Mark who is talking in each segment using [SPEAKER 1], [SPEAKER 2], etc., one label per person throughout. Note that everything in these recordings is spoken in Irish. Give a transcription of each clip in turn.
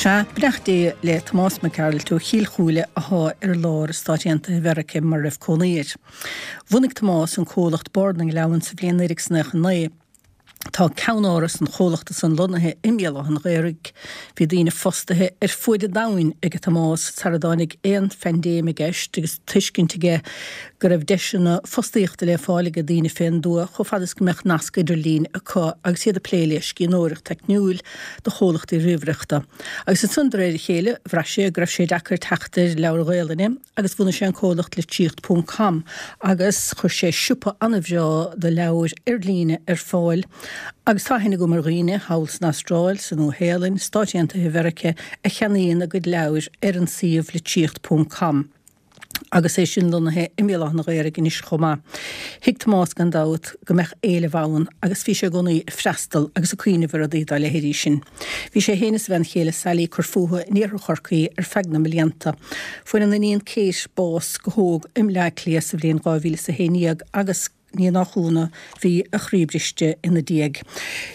[SPEAKER 1] Sea, beannacht Dé le Tomás Mac Gearailt ó Chill Chúile athá ar lár i Stáit Aontaithe Mheirice mar a raibh cónaí air. Bhunaigh Tomás an comhlacht Bord na nGleann sa bhliain 1999. Tá ceannáras an chomhlachta san lonnaithe i mBéal Átha an Ghaorthaidh. Bhí daoine fostaithe ar fuaid an domhain ag Tomás sara dtáinig aon phaindéim i gceist agus tuiscint aige go raibh deiseanna fostaíochta le fáil ag daoine fén dtuath chomh fada is go mbeadh nasc idirlín acu agus iad ag plé le scríbhneoireacht teicniúil do chomhlachtaí ríomhaireachta. Agus ansan de réir a chéile bhraith sé go raibh sé deacair teacht ar leabhair Ghaelainne agus bhunaigh sé an comhlacht Litríocht Ponc Com agus chuir sé siopa an-bhreá do leabhair ar líne ar fáil agus tá aithne agam ar dhaoine thall san Astráil, sa Nua Shéalainn, Stáit Aontaithe Mheirice a cheannaíonn a gcuid leabhair ar an suíomh Litríocht Ponc Com agus é sin lonnaithe i mBéal Átha an Ghaorthaidh anois chomh maith. Thuig Tomás gan dabht go mbeadh éileamh ann agus bhí sé i gcónaí ag freastal agus ag cuimhneamh ar rudaí dá leithéidí sin. Bhí sé féin is a bhean chéile Sally ag cur fúthu in iarthar Chorcaí ar feadh na mblianta. Fuair an iníon Kate bás go hóg i mBleá Cliath sa bhliain 2011 agus ní nach ionadh bhí a chroí briste ina diaidh.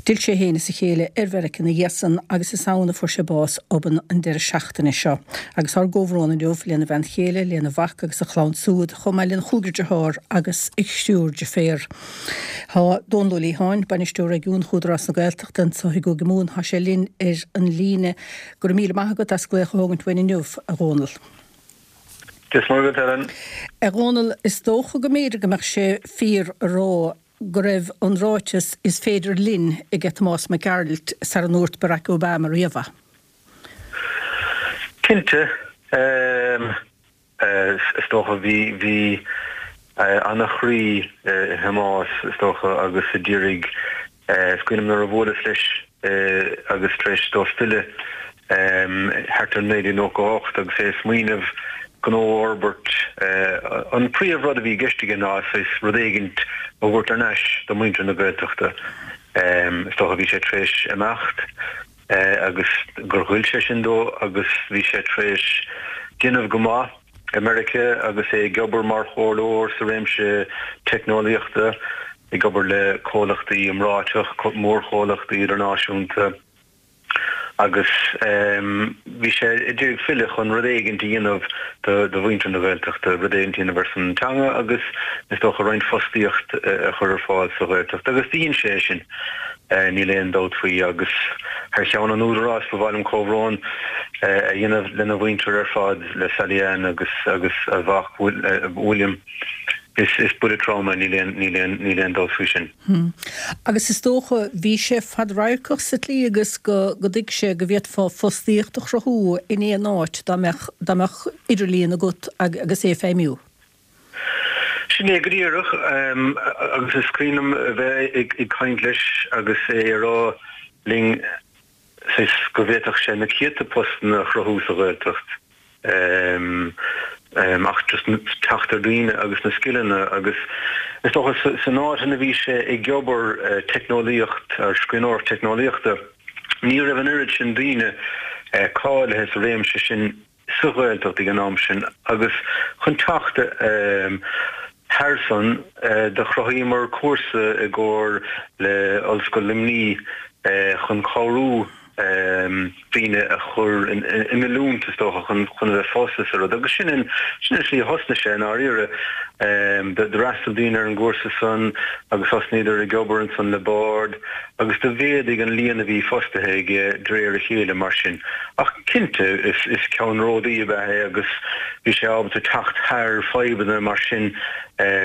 [SPEAKER 1] D'fhill sé féin is a chéile ar Mheiriceá ina dhiaidh san agus is ann a fuair sé bás obann an deireadh seachtaine seo. Agus ár gcomhbhrón inniu lena bhean chéile, lena mhac agus a chlann súd, chomh maith lena chúigear dearthár agus a thriúr deirféar. Tá Dónal Ó Liatháin, Bainisteoir Réigiúnach Údarás na Gaeltachta anseo i gCúige Mumhan. Tá sé linn ar an líne. Go raibh míle maith agat as glaoch a thógaint uainn inniu, a Dhónaill.
[SPEAKER 2] Dia is Muire dhuit, Helen.
[SPEAKER 1] A Dhónaill, is dócha go mb'fhéidir go mbeadh sé fíor a rá go raibh an ráiteas 'is féidir linn' aige Tomás Mac Gearailt sara ndúirt Barack Obama riamh é.
[SPEAKER 2] Cinnte. Is dócha, bhí, bhí ana-chroí i Thomás, is dócha, agus a d'iarraidh, is cuimhin liom nuair a bhuaileas leis agus tar éis dó filleadh thart ar 1998 agus é ag smaoineamh gnó a fhorbairt, an príomh rud a bhí i gceist aige ná saghas rud éigint a thabhairt thar n-ais do mhuintir na Gaeltachta. Is dócha bhí sé tar éis imeacht. agus gur ghoill sé sin dó agus bhí sé tar éis déanamh go maith i Meiriceá agus é ag obair mar chomhairleoir sa réimse teicneolaíochta, ag obair le comhlachtaí iomráiteach, mórchomhlachtaí idirnáisiúnta agus bhí sé ag iarraidh filleadh chun rud éigint a dhéanamh do mhuintir na Gaeltachta, rud éigint a dhéanamh ar son an teanga agus is dócha roinnt fostaíocht a chur ar fáil sa Ghaeltacht agus do dhein sé é sin. Níl aon dabht faoi agus thar cheann an Údaráis ba mhaith liom comhbhrón a dhéanamh lena mhuintir ar fad, le Sally Ann agus agus a mhac William. Is is buille trom é, níl aon níl aon níl aon dabht faoi sin.
[SPEAKER 1] Agus is dócha bhí sé fadradharcach sa tslí agus go go dtuig sé go bhféadfá fostaíocht a chruthú in aon áit dá mbeadh dá mbeadh idirlíon agat agus é ag feidhmiú.
[SPEAKER 2] Sin é go díreach, agus is cuimhin liom a bheith ag caint leis agus é ag rá linn saghas go bhféadfadh sé na céadta postanna a chruthú sa Ghaeltacht ach just teacht ar dhaoine agus na scileanna agus is dócha san áit ina bhí sé ag obair teicneolaíocht, ar scríbhneoireacht teicneolaíochta, ní raibh an oiread sin daoine cáilithe sa réimse sin. sa Ghaeltacht ag an am sin agus chun teacht thar san do chruthaíomar cúrsa i gcomhar le Ollscoil Luimnigh chun cabhrú daoine a chur in oiliúint is dócha chun a bheith fostaithe sa rud agus sin an sin an slí a thosnaigh sé i ndáiríre. D'fhreastail daoine ar an gcúrsa san agus thosnaíodar ag obair ansan le Bord agus do mhéadaigh an líon a bhí fostaithe aige de réir a chéile mar sin. Ach cinnte, is ceannródaí ab ea é agus bhí sé ábalta teacht thar fadhbanna mar sin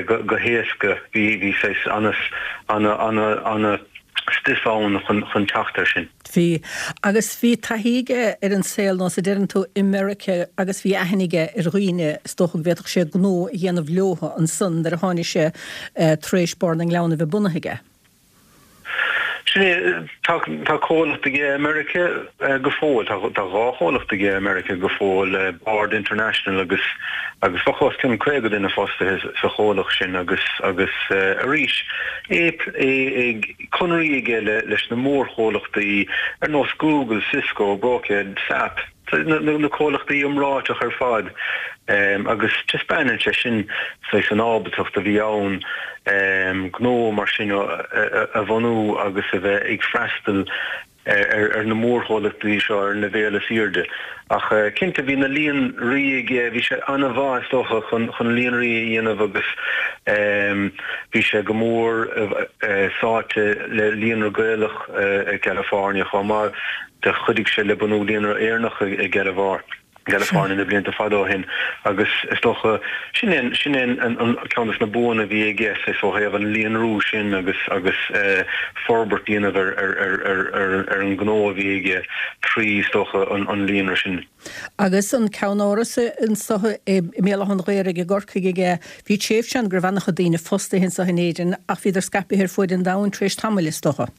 [SPEAKER 2] go héasca. Bhí bhí saghas ana ana ana ana stuif ann chun teacht air sin.
[SPEAKER 1] Bhí. Agus bhí taithí aige ar an saol, nós a deireann tú, i Meiriceá agus bhí aithne aige ar dhaoine, is dócha go bhféadfadh sé gnó a dhéanamh leothu ansan nuair a tháinig sé tar éis Bord na nGleann a bheith bunaithe aige.
[SPEAKER 2] Sin é, tá tá comhlacht aige i Meiriceá go fóill, tá tá dhá chomhlacht aige i Meiriceá go fóill, Bord International agus agus bheadh os cionn 50 duine fostaithe sa chomhlacht sin agus agus arís é é ag conairí aige le leis na mórchomhlachtaí ar nós Google, Cisco, Brocade, SAP. na comhlachtaí iomráiteach ar fad agus taispeánann sé sin saghas an ábaltacht a bhí ann gnó mar sin a bhunú agus a bheith ag freastal. Ar na mórchomhlachtaí seo ar an leibhéal is airde. Ach cinnte bhí na líonraí aige, bhí sé an-mhaith is dócha chun chun líonraí a dhéanamh agus bhí sé go mór sáite le Líonra Gaelach i gCalifornia chomh maith. Do chuidigh sé le bunú Líonra Éireannach i gCalifornia. gCalifornia na blianta fada ó shin agus is dócha sin é sin é an ceann de na buanna a bhí aige saghas ó thaobh an líonrú sin agus agus forbairt a dhéanamh ar ar ar ar ar ar an ngnó a bhí aige trí is dócha an an líonra sin.
[SPEAKER 1] Agus an ceannáras anso i mBéal Átha an Ghaorthaidh i gCorcaigh aige, bhí tréimhse ann go raibh an-chuid daoine fostaithe anso in Éirinn ach bhíodar scaipthe ar fuaid an domhain tar éis tamaill is dócha.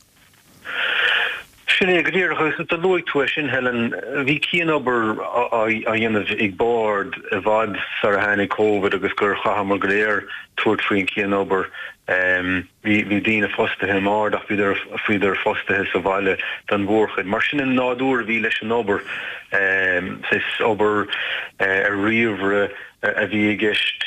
[SPEAKER 2] Sin é go díreach, agus do luaigh tú é sin, Helen. Bhí cianobair á dhéanamh ag Bord i bhfad sar a tháinig Covid agus gur chaitheamar go léir tabhairt faoin chianobair. Bhí bhí daoine fostaithe i mBord ach bhíodar bhíodar fostaithe sa bhaile don mhórchuid. Mar sin an nádúr a bhí leis an obair, saghas obair ar ríomhaire a bhí i gceist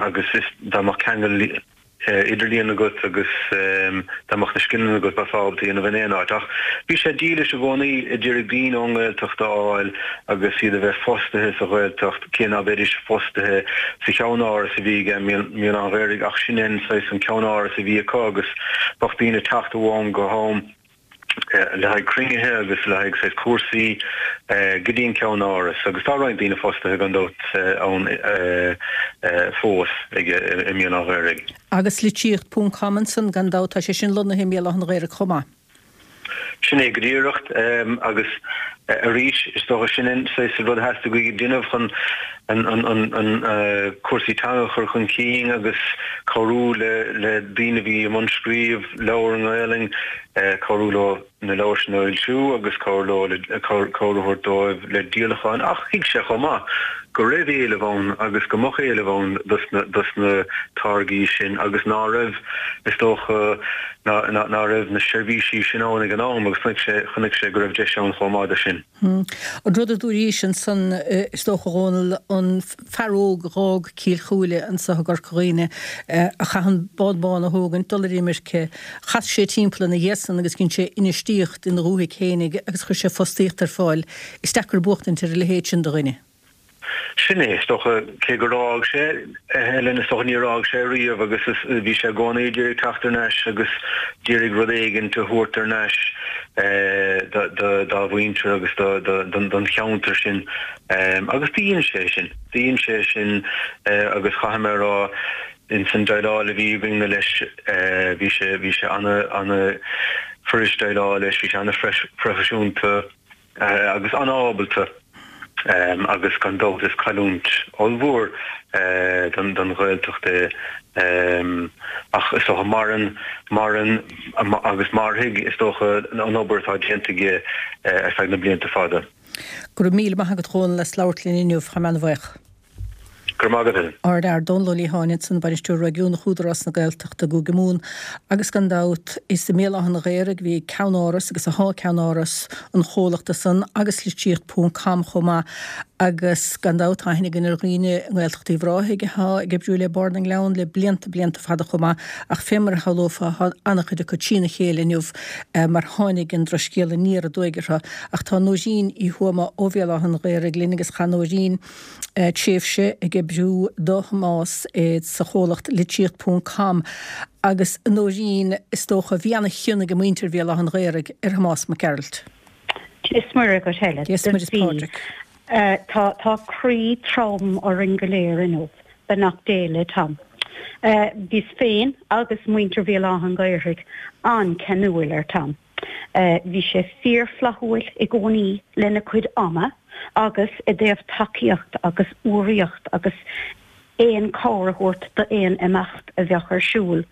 [SPEAKER 2] agus is dá mbeadh ceangal idirlíon agat agus dá mbeadh na scileanna agat bheifeá ábalta a dhéanamh in aon áit. Ach bhí sé dílis i gcónaí a d'iarraidh daoine ón nGaeltacht a fháil agus iad a bheith fostaithe sa Ghaeltacht, cé ná beidís fostaithe sa cheannáras a bhí aige i mBéal Átha an Ghaorthaidh ach sin é an saghas an ceannáras a bhí acu agus bheadh daoine ag teacht ó am go ham. le haghaidh cruinnithe agus le haghaidh saghas cúrsaí go dtí an ceannáras agus tá roinnt daoine fostaithe gan dabht ann fós aige i mBéal Átha an Ghaorthaidh.
[SPEAKER 1] Agus litríocht ponc com ansan gan dabht, tá sé sin lonnaithe i mBéal Átha an Ghaorthaidh chomh maith.
[SPEAKER 2] Sin é go díreach agus arís is dócha sin an saghas rud a theastaigh uaidh déanamh chun an cúrsaí teanga a chur chun cinn agus cabhrú le daoine a bhí i mbun scríobh leabhar i nGaelainn, cabhrú leo na leabhair sin a fhoilsiú agus cabhrú leo le cabhair a thabhairt dóibh le díolacháin. Ach thuig sé chomh maith go raibh éileamh ann agus go mbeadh éileamh ann dos na táirgí sin agus ná raibh, is dócha, ná raibh na seirbhísí sin ann ag an am agus chonaic sé, chonaic sé go raibh deis ann chomh maith do sin.
[SPEAKER 1] An rud a dúraís ansan, is dócha, a Dhónaill, an fear óg a dh'fhág Cill Chúile anso i gCorca Dhuibhne, a chaith an bád bán a thógaint, dul ar imirce, chas sé timpeall ina dhiaidh san agus dhein sé infheistíocht ina dhúthaigh fhéinig agus chuir sé fostaíocht ar fáil. Is deacair buachtaint ar a leithéid sin de dhuine.
[SPEAKER 2] Sin é, is dócha, cé gur fhág sé, Helen, is dócha, níor fhág sé riamh agus is, bhí sé i gcónaí ag iarraidh teacht thar n-ais agus d'iarraidh rud éigint a thabhairt thar n-ais dá mhuintir agus don cheantar sin agus do dhein sé sin, do dhein sé sin agus chaithfidh mé a rá ins an déileáil a bhí againn leis bhí sé, bhí sé ana, ana fuirist déileáil leis, bhí sé ana phroifisiúnta. agus an-ábalta agus gan dabht is cailliúint ollmhór don Ghaeltacht é ach is dócha maireann, maireann agus mairfidh is dócha an obair atá déanta aige ar feadh na blianta fada.
[SPEAKER 1] Go raibh míle maith agat a Dhónaill as labhairt linn inniu, tá mé an-bhuíoch.
[SPEAKER 2] Go raibh maith agat, Helen.
[SPEAKER 1] Ár bhfear Dónal Ó Liatháin ansan, Bainisteoir Réigiúnach Údarás na Gaeltachta i gCúige Mumhan agus gan dabht is i mBéal Átha an Ghaorthaidh a bhí ceannáras agus athá ceannáras an chomhlachta san agus litríocht ponc com chomh maith agus gan dabht tá aithne againn ar dhaoine i nGaeltacht Uíbh Ráthaigh athá ag oibriú le Bord na nGleann le blianta blianta fada chomh maith ach fé mar a shamhlófá thá an-chuid acu trína chéile inniu mar tháinig an drochscéal aniar aduaidh orthu ach tá Nóirín Uí Thuama ó Bhéal Átha an Ghaorthaidh linn agus chaith Nóirín tréimhse ag oibriú do Thomás sa chomhlacht Litríocht Ponc Com agus a Nóirín, is dócha, bhí ana-chion ag muintir Bhéal Átha an Ghaorthaidh ar Thomás Mac Gearailt.
[SPEAKER 3] Dia is Muire dhuit Helen.
[SPEAKER 1] Dia is Muire is Pádraig.
[SPEAKER 3] Tá tá croí trom orainn go léir inniu. Beannacht Dé le Tom. Bhíos féin agus muintir Bhéal Átha an Ghaorthaidh an-cheanúil ar Tom. Bhí sé fíorfhlaithiúil i gcónaí lena chuid ama agus i dtaobh tacaíocht agus urraíocht agus aon chabhair a thabhairt d'aon imeacht a bheadh ar siúl,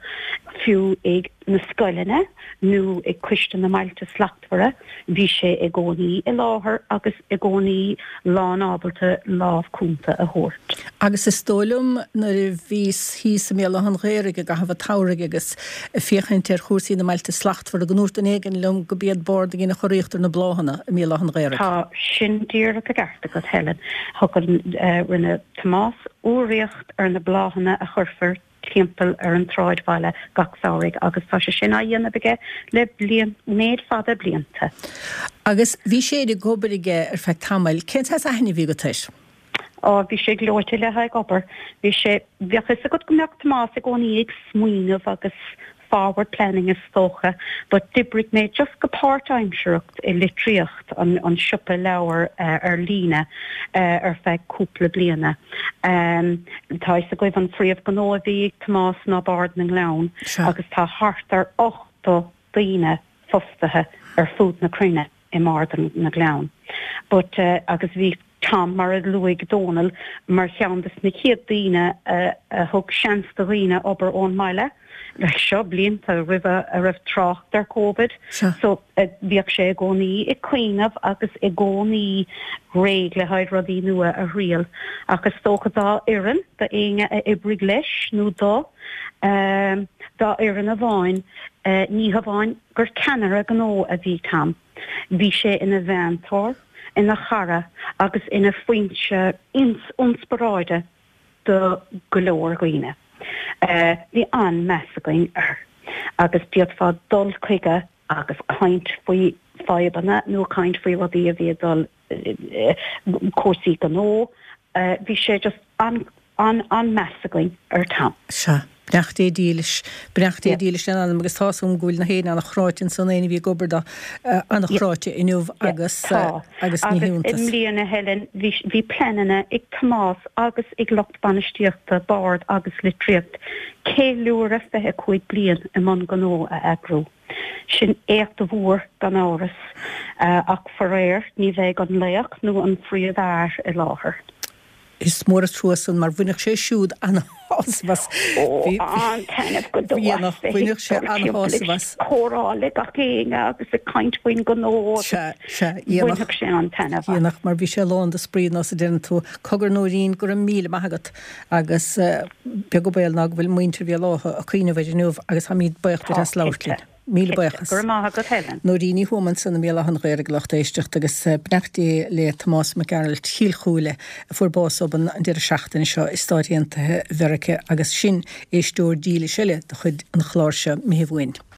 [SPEAKER 3] fiú ag na scoileanna nó ag Coiste na mBailte Slachtmhara, bhí sé i gcónaí i láthair agus i gcónaí lánábalta lámh cúnta a thabhairt.
[SPEAKER 1] Agus is dóigh liom nuair a bhíos thíos i mBéal Átha an Ghaorthaidh i gcaitheamh an tsamhraidh agus ag féachaint ar chúrsaí na mBailte Slachtmhara go ndúirt duine éigin liom go b'iad Bord a dhein an churaíocht ar na bláthanna i mBéal Átha an Ghaorthaidh.
[SPEAKER 3] Tá sin díreach i gceart agat, Helen. Thug an, rinne Tomás urraíocht ar na bláthanna a chuirfear. timpeall ar an tsráidbhaile gach samhraidh agus tá sé sin á dhéanamh aige le bliain, méid fada blianta.
[SPEAKER 1] Agus bhí sé ag obair aige ar feadh tamaill. Cén saghas aithne a bhí agat air?
[SPEAKER 3] Á, bhí sé gleoite le haghaidh obair. Bhí sé, bheadh fhios agat go mbeadh Tomás i gcónaí ag smaoineamh agus forward planning is dócha, but d'oibrigh mé just go páirtaimsearach i Litríocht, an, an siopa leabhar ar líne ar feadh cúpla bliana. Tá fhios agaibh an phríomhghnó a bhí ag Tomás ná Bard na nGleann agus tá thart ar 80 daoine fostaithe ar fud na cruinne. i mBard na nGleann. But agus bhí Tom, mar a luaigh Dónal, mar cheann des na chéad daoine a thug seans do dhaoine obair ón mbaile, like seo blianta roimhe a raibh trácht ar Covid. So bhíodh sé i gcónaí ag cuimhneamh agus i gcónaí réidh le haghaidh rudaí nua a thriail. Ach is dócha dá fhoireann, do éinne a oibrigh leis nó dó, dá fhoireann amháin, ní hamháin gur ceannaire gnó a bhí Tom. Bhí sé ina mheantóir, ina chara agus ina foinse ionspioráide do go leor dhaoine. Bhí an-meas againn air agus d'fhéadfá dul chuige agus caint faoi fadhbanna nó caint faoi rudaí a bhí ag dul cúrsaí gnó. Bhí sé just an an-meas againn ar Tom.
[SPEAKER 1] Sea. Beannacht Dé dílis. Beannacht Dé dílis lena anam agus tá's agam go bhfuil na héinne an-chráite ansan, éinne a bhí ag obair dó, an-chráite inniu agus
[SPEAKER 3] Tá.
[SPEAKER 1] agus ní
[SPEAKER 3] Agus i
[SPEAKER 1] hiontas.
[SPEAKER 3] mbliana, Helen, bhí bhí pleananna ag Tomás agus ag lucht bainistíochta Bard agus Litríocht ceiliúradh 25 bliain i mbun gnó a eagrú. Sin éacht mhór gan amhras, ach faraor ní bheidh an laoch nó an phríomhfhear i láthair.
[SPEAKER 1] Is mór an trua san mar bhainfeadh sé siúd an-shásamh as.
[SPEAKER 3] Ó, an-taitneamh go deo as bheith
[SPEAKER 1] Bhainfeadh sé
[SPEAKER 3] ag dul timpeall
[SPEAKER 1] an-shásamh as.
[SPEAKER 3] ag comhrá le gach éinne agus ag caint faoin ngnó agus
[SPEAKER 1] Sea, sea, dhéanfadh.
[SPEAKER 3] bhainfeadh sé an-taitneamh as.
[SPEAKER 1] Dhéanfadh, mar bhí sé lán de spraoi nós a deireann tú. Cogar Nóirín, go raibh míle maith agat agus beag an baol ná go bhfuil muintir Bhéal Átha ag cuimhneamh air inniu agus táimid buíoch duit
[SPEAKER 3] Tá,
[SPEAKER 1] as labhairt
[SPEAKER 3] cinnte.
[SPEAKER 1] linn. Míle
[SPEAKER 3] Cinnte.
[SPEAKER 1] buíochas.
[SPEAKER 3] Go raibh maith agat Helen.
[SPEAKER 1] Nóirín Ní Thuama ansan i mBéal Átha an Ghaorthaidh a lucht éisteachta agus beannacht Dé le Tomás Mac Gearailt Chill Chúile a fuair bás obann an deireadh seachtaine seo i Stáit Aontaithe Mheirice agus sin éisteoir dílis eile de chuid an chláir seo Mhichíl Uainn.